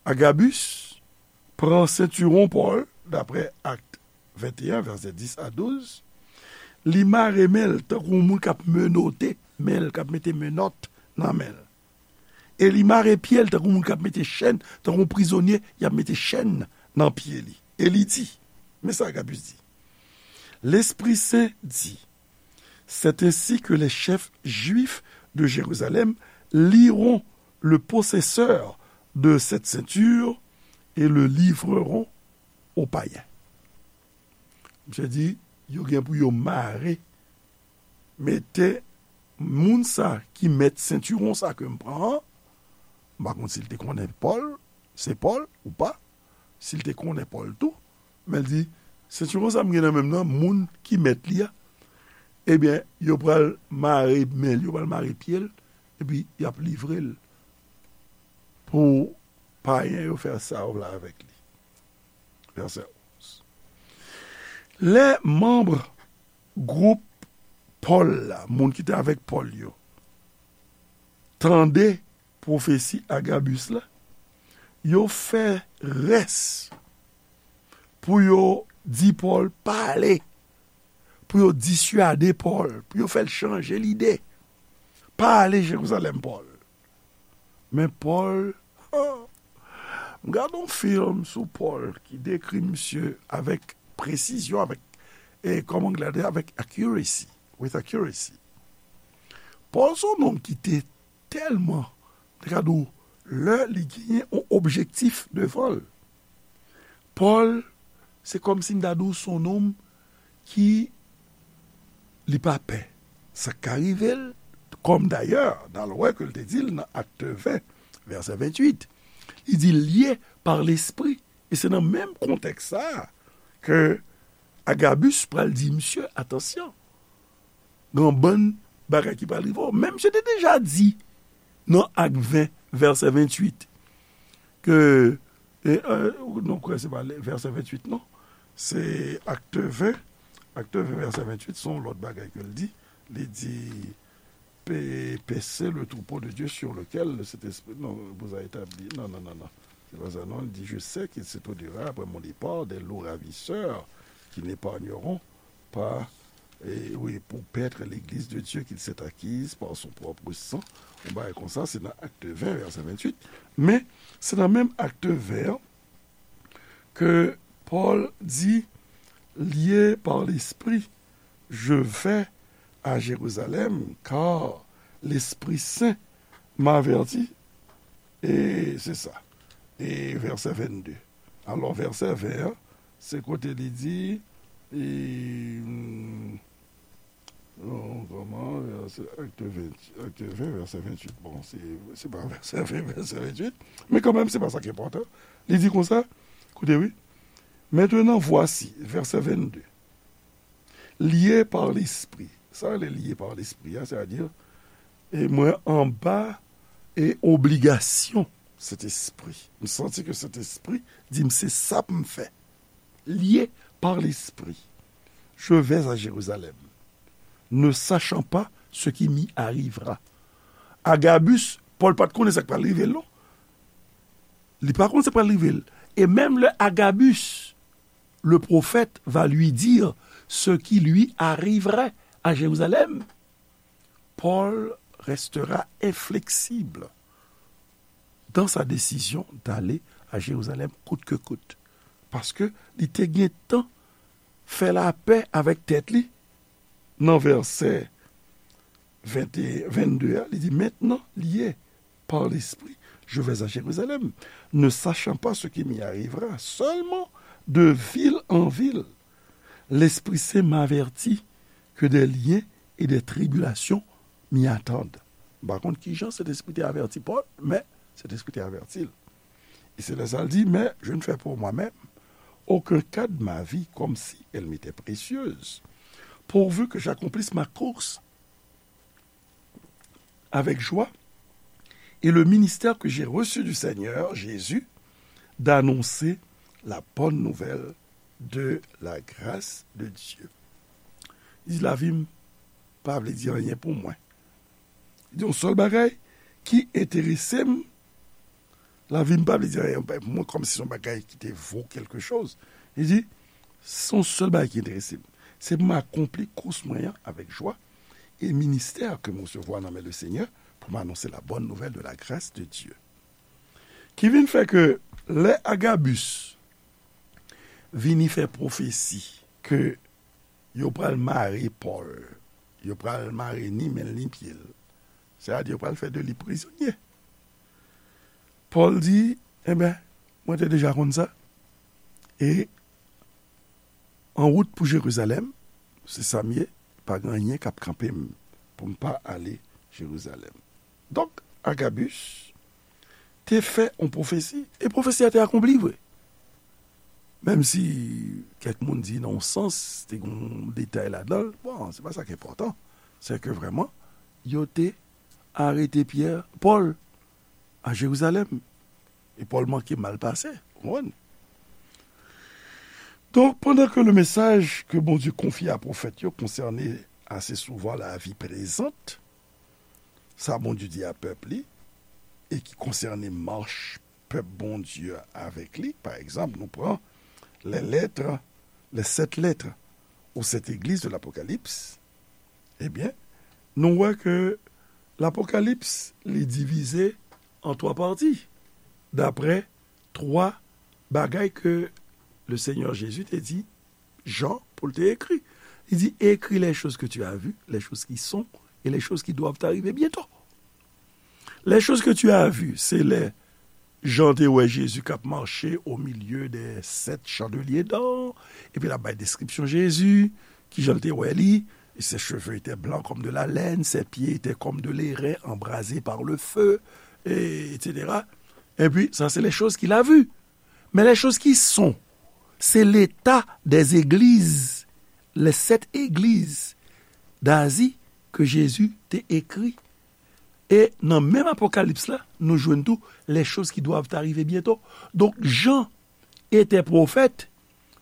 Agabus pran sentiwon Pòl, daprè Akt venteyen, vèsè dis a douz, li mare men l tankou yon moun k ap menote men l, k ap mete menòt nan men l. E li mare pye l tankou moun k ap mete chèn, tankou yon prizonye, y ap mete chèn nan pye li. E li di, men sa Agabus di, L'Esprit Saint dit, c'est ainsi que les chefs juifs de Jérusalem lieront le possesseur de cette ceinture et le livreront aux païens. Misye di, yo gen pou yo mare, mete moun sa ki mèt sentiwon sa ke m pran an, m pa konn si l te konnen Pòl, se Pòl ou pa, si l te konnen Pòl tou, men l di, sentiwon sa m gen nan men m nan, moun ki mèt li a, ebyen, yo pral mare men l, yo pral mare pye l, epi y ap livre l pou payen yo fè sa yo vle avèk li. Vèsè onz. Lè manm gwoup Pòl la, moun ki te avèk Pòl yo, tande pwofesi Agabis la, yo fè rès pou yo di Pòl pa ale, pou yo diswade Pòl, pou yo fè l chanje lide. Pa ale Jerizalèm, Pòl. Men Pòl, m gade yon fim sou Pòl ki dekri misye avèk presizyon, avèk, e kòman anglè di, avèk accuracy, with accuracy. Pòl se yon nonm ki te tèlman, te ka di w, lè li genyen yon objektif devan l. Pòl, se kòmsi m ta di w se yon nonm ki li pa pè sa k ka rive l, kòm dayè, n al wè ke l te di l nan Akte ven, vèsè venntuit, li di, lye pa Lespri. E se nan menm kontèks sa a ke Agabus pral di misye, atansyon, gen yon bann bagay ki pral rive w. Men misye te deja di nan Ak ven, vèsè venntuit, ke, e, e, nou kwè se pa vèsè venntuit, non. Se Akte ven, Akte ven, vèsè venntuit, se yon lòt bagay ke l di. Li di, pe-, paissez le troupeau de Dieu sur lequel le Saint-Esprit, non, vous a établi. Non, non, non, non. C'est pas ça, non. Il dit, je sais qu'il s'étoilera après mon départ des loups ravisseurs qui n'épargneront pas, et oui, pour paître l'église de Dieu qu'il s'est acquise par son propre sang. Yon bagay konsa, se nan Akte ven, vèsè venntuit. Men, se nan menm Akte ven an ke Pòl di, lié par l'Esprit, je vais à Jérusalem, car l'Esprit Saint m'avertit. E se sa. E vèsè vennde. Alò, vèsè ven an, se kote li di, e, hmm, non, kòman, vèsè, Akte ven, Akte ven, vèsè venntuit. Bon, se, se pa vèsè ven, vèsè venntuit, men kanmenm, se pa sa ki enpòtan. Li di konsa, koute, wi. Maintenant, voici, vèsè vennde. Lié par l'Esprit. Sa rele lié par l'Esprit a, sètadi, e mwen anba e obligasyon Sentespri. M santi ke Sentespri di m se sa pou m fè. Lié par l'Esprit, je vais à Jérusalem, ne sachant pas ce qui m'y arrivera. Agabus, Pòl pa t konnen sa k pral rive l, non. Li pa konn sa k pral rive l. E menm lè Agabus, le prophète va lui dire ce qui lui arriverait à Jérusalem, Paul restera inflexible dans sa décision d'aller à Jérusalem coûte que coûte. Paske li te gentan fè lapè avèk tèt li nan vèsè vennde a, li di, maintenant, lié par l'Esprit, je vais à Jérusalem, ne sachant pas ce qui m'y arrivera, seulement de ville en ville, l'Esprit Saint m'avertit que des liens et des tribulations m'y attendent. M pa konn kijan Sentespri te avèti Pòl, men Sentespri te avèti l. E se lè sa l di, mais je ne fais pour moi-même aucun cas de ma vie comme si elle m'était précieuse, pourvu que j'accomplisse ma course avec joie et le ministère que j'ai reçu du Seigneur Jésus d'annoncer la bonne nouvelle de la grâce de Dieu. Li di, lavi m pa vle di anyen pou mwen. Li di, yon sèl bagay ki enterese m, lavi m pa vle di anyen pou mwen, kòmsi se yon bagay ki te vo quelque chose. Li di, se yon sèl bagay ki enterese m. Se pou m akonpli kous mwen an avèk jwa, e ministè ke m resevwa nan men le Senyè pou m anonse la bonne nouvelle de la grâce de Dieu. Ki vin fè ke lè Agabus vini fè pwofesi ke yo pral mare Pòl, yo pral mare ni men l ni pye l, sètadi yo pral fè de li prizonye. Pòl di, enben, mwen te deja konn sa. E an wout pou Jerizalèm, se sa m ye, pa gen anyen k ap kanpe m pou m pa ale Jerizalèm. Donk, Agabus te fè yon pwofesi, e pwofesi a te akonpli vre. Menm si kèk moun di nan yon sans, te gen yon detay ladan l, bon, se pa sa ki enpòtan. Se ke vrèman, yo te arete Pyè, Pòl, a Jerizalèm. E Pòl manke mal pase, w konprann? Donk, pandan ke le mesaj ke Bondye konfye a pwofèt yo konsène ase souvan lavi prezant, sa Bondye di a pèp li, e ki konsène mach pèp Bondye a avèk li, pa egzanp, nou pran les lettres, les sept lettres aux sept églises de l'Apocalypse, ebyen, nou wè ke Lapokalips, li divize an twa pati, daprè twa bagay ke le Senyè Jezi te di Jan pou l te ekri. Li di, écris les choses que tu as vues, les choses qui sont, et les choses qui doivent arriver bientôt. Les choses que tu as vues, se lè Jan te wè Jezi k ap mache au milieu des sept chandeliers d'or, epi l ap bay deskripsyon Jezi, kijan l te wè li, ses cheveux étaient blancs comme de la laine, ses pieds étaient comme de l'airain embrasé par le feu, et, et cetera. Epi, sa se les choses qu'il a vues. Men les choses qui sont, se l'état des églises, les sept églises d'Asie ke Jezi te ekri. E nan menm Apokalips la, nou jwenn tou les choses qui doivent arriver bientôt. Donk, Jan était prophète,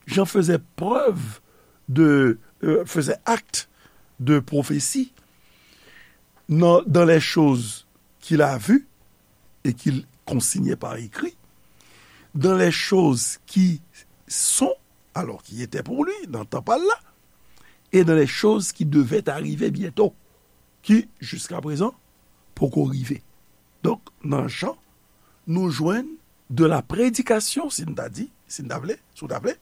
Jan faisait preuve de, euh, faisait acte de prophétie dans, dans les choses qu'il a vues et qu'il consignait par écrit, dans les choses qui sont, alors qui étaient pour lui, dans tan pa l la, et dans les choses qui devaient arriver bientôt, ki, jiskaprezan, poko rive. Donk, nan Jan, nou jwenn de la prédication, si n ta di, si n ta vle, si w ta vle,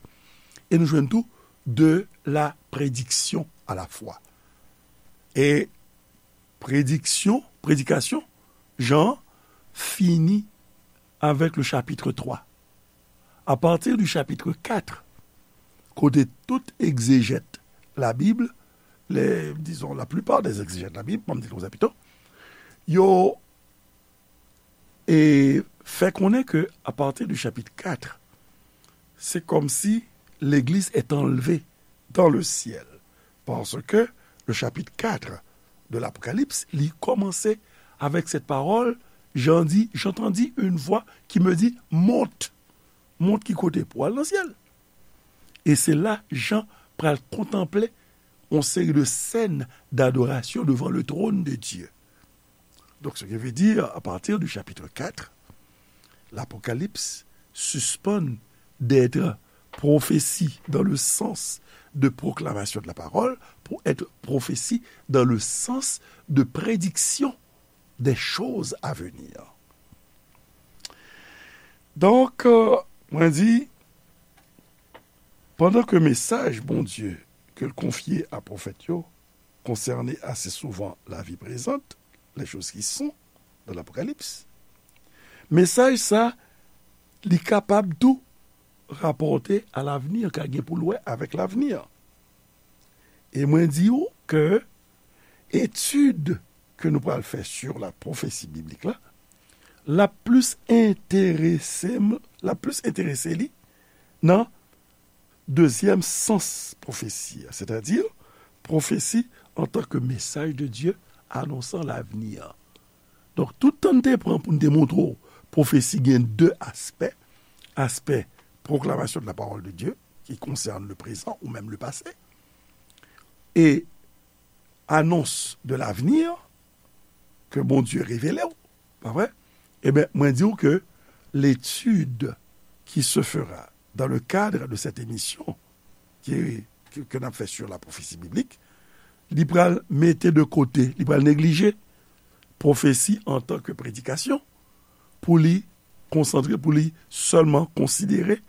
e nou jwenn tou de la prédiction à la fois. E prédiction, prédication, Jan fini avec le chapitre trois. À partir du chapitre quatre, kote tout egzejèt Labib, les, disons, la plupart des exégètes de la Bible, pa m di l konsa pito, yo e fè konnen ke à partir du chapitre quatre, se kòmsi l'église est enlevée dans le ciel. Parce que le chapitre quatre de l'Apocalypse, li kòmanse avec cette parole, Jan di, j'entendis une voix qui me dit, monte. Monte ki kote? Pou al nan syèl. E se la Jan pral kontanple yon seri de scènes d'adoration devant le trône de Dieu. Donc, ce qui veut dire, à partir du chapitre quatre, l'Apocalypse suspend d'être prophétie dans le sens de proclamation de la parole pour être prophétie dans le sens de prédiction des choses à venir. Donk, euh, mwen di, pandan ke mesaj Bondye ke l konfye a pwofèt yo konsène ase souvan lavi prezant, les choses qui sont dans l'Apocalypse, mesaj sa, li kapab tou rapòte a lavni, ka gen pou l wè avèk lavni. E mwen di w ke etid ke nou pral fè sur la prophétie biblique la, l ap plis enterese m, l ap plis enterese li nan dezyèm sans pwofesi a, sètadi pwofesi antanke mesaj de Dye anonsan lavni an. Donk, tout tan n te pran pou n te montre w pwofesi gen de aspè, aspè proclamation de la parole de Dieu, qui concerne le présent ou même le passé, et annonce de l'avenir que Bondye revele w, pa vre? Ebyen, mwen di w ke l'étude qui se fera dans le cadre de cette émission qui, que, que n ap fè sur la prophétie biblique, li pral mete de kote, li pral neglije pwofesi antanke predikasyon pou li konsantre, pou li sèlman konsidere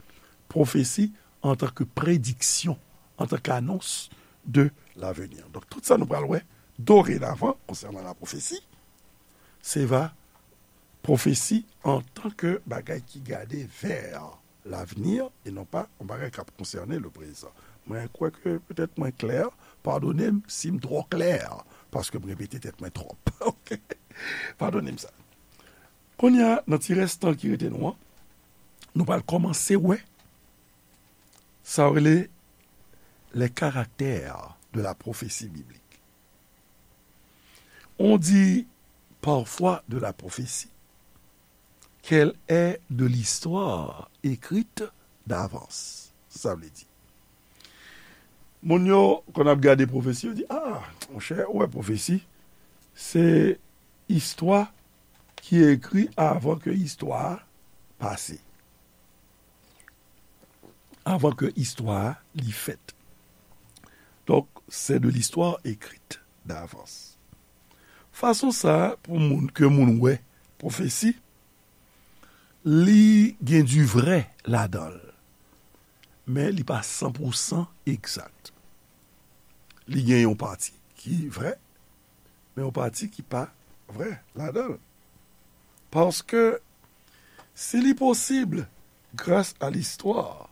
pwofesi antanke prediksyon, antanke anons de l'avenir. Donk, tout sa nou pral wè dorenavan konsènan la pwofesi, se va pwofesi antanke bagay ki gade vè lavni e non pa yon bagay k ap konsène le prezan. Mwen kwè ke petèt mwen klè, padone m si m twò klè, paske m repete tèt mwen twòp. Ok? Padone m sa. Kounye a, nan ti rès tan ki rete nou an, nou pral kòmanse wè sa yo rele les caractères de la prophétie biblique. On dit parfois de la prophétie qu'elle est de l'histoire écrite d'avance. Sa vle di, moun yo, kon ap gade pwofesi, yo di, ah, monchè, ou wè pwofesi, se istwa ki ekri avan ke istwa a pase. avant que istwa a li fèt. Donc, c'est de l'histoire écrite d'avance. Fason sa a, pou moun, ke moun wè pwofesi, li gen du vrai ladan l, men li pa san pou san egzak. Li gen yon pati ki vrè, men yon pati ki pa vrè ladan l. Paske si li posib, gras a listwa,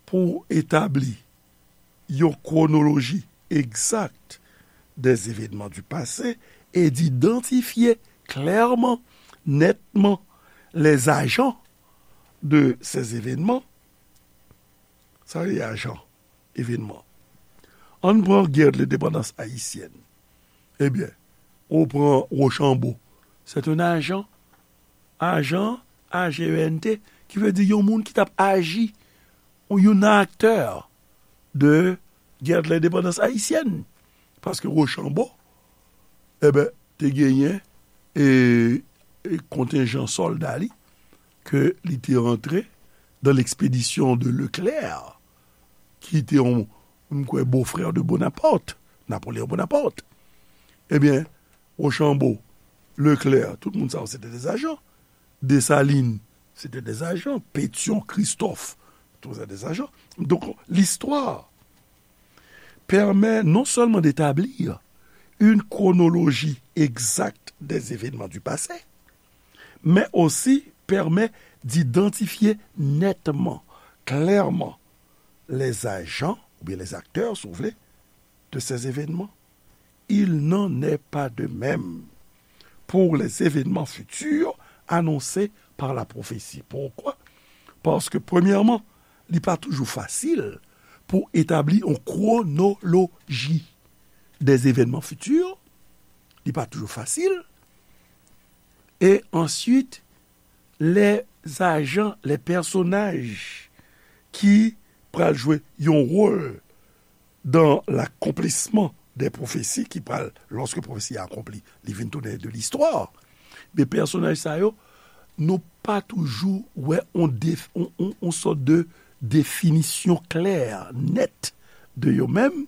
pou etabli yon kwonoloji egzak des événements du passé et d'identifier clairement, nettement, les agents de ces événements. Sa vle di ajan, evenman. Ann pran gè de lendepandans ayisyèn. Ebyen, ou pran Rochambeau. C'est un agent. Ajan, A G E N T, ki vle di yon moun ki t ap aji, ou yon aktè de gè de lendepandans ayisyèn. Paske Rochambeau, ebyen, te genyen e, e kontenjan sòlda li, ke li te rantre dans l'expédition de Leclerc, ki te yon, m kwè, bofrè de Bonaparte, Napoléon Bonaparte. Ebyen, Rochambeau, Leclerc, tout moun sa yo, se te des agents. Dessalines, se te des agents. Pétion, Christophe, tout se te des agents. Donc, l'histoire permet non seulement d'établir une chronologie exacte des événements du passé, mais aussi permet d'identifier nettement, clairement, les agents, ou bien les acteurs, si vous voulez, de ces événements. Il n'en est pas de même pour les événements futurs annoncés par la prophétie. Pourquoi? Paske, premyèman, li pa toujou fasil pou etabli yon kwonoloji des événements futurs. Li pa toujou fasil. E answit, les agents, les personnages ki pral jwe yon wòl dans l'accomplissement des prophéties, ki pral, lòske pwofesi a akonpli, li vin tounen de l'histoire. Men pèsonaj sa yo, nou pa toujou wè on def-, on, on, on sòt de definisyon klè, nèt de yo menm,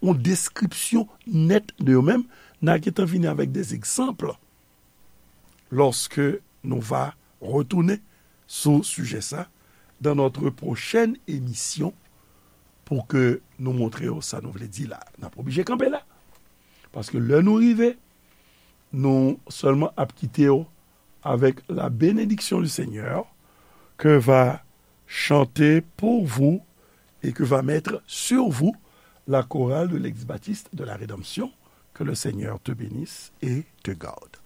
on deskripsyon nèt de yo menm. N a gentan vini avèk des exemples lorsque nous va retourner sou sijè sa dans notre prochaine émission pou ke nou montre yo sa nou vle di la. N ap oblije kanpe la. Paske lè nou rive, nou sèlman ap kite yo avec la bénédiction du Seigneur que va chanter pour vous et que va mettre sur vous la chorale de l'Église baptiste de la Rédemption. Que le Seigneur te bénisse et te garde.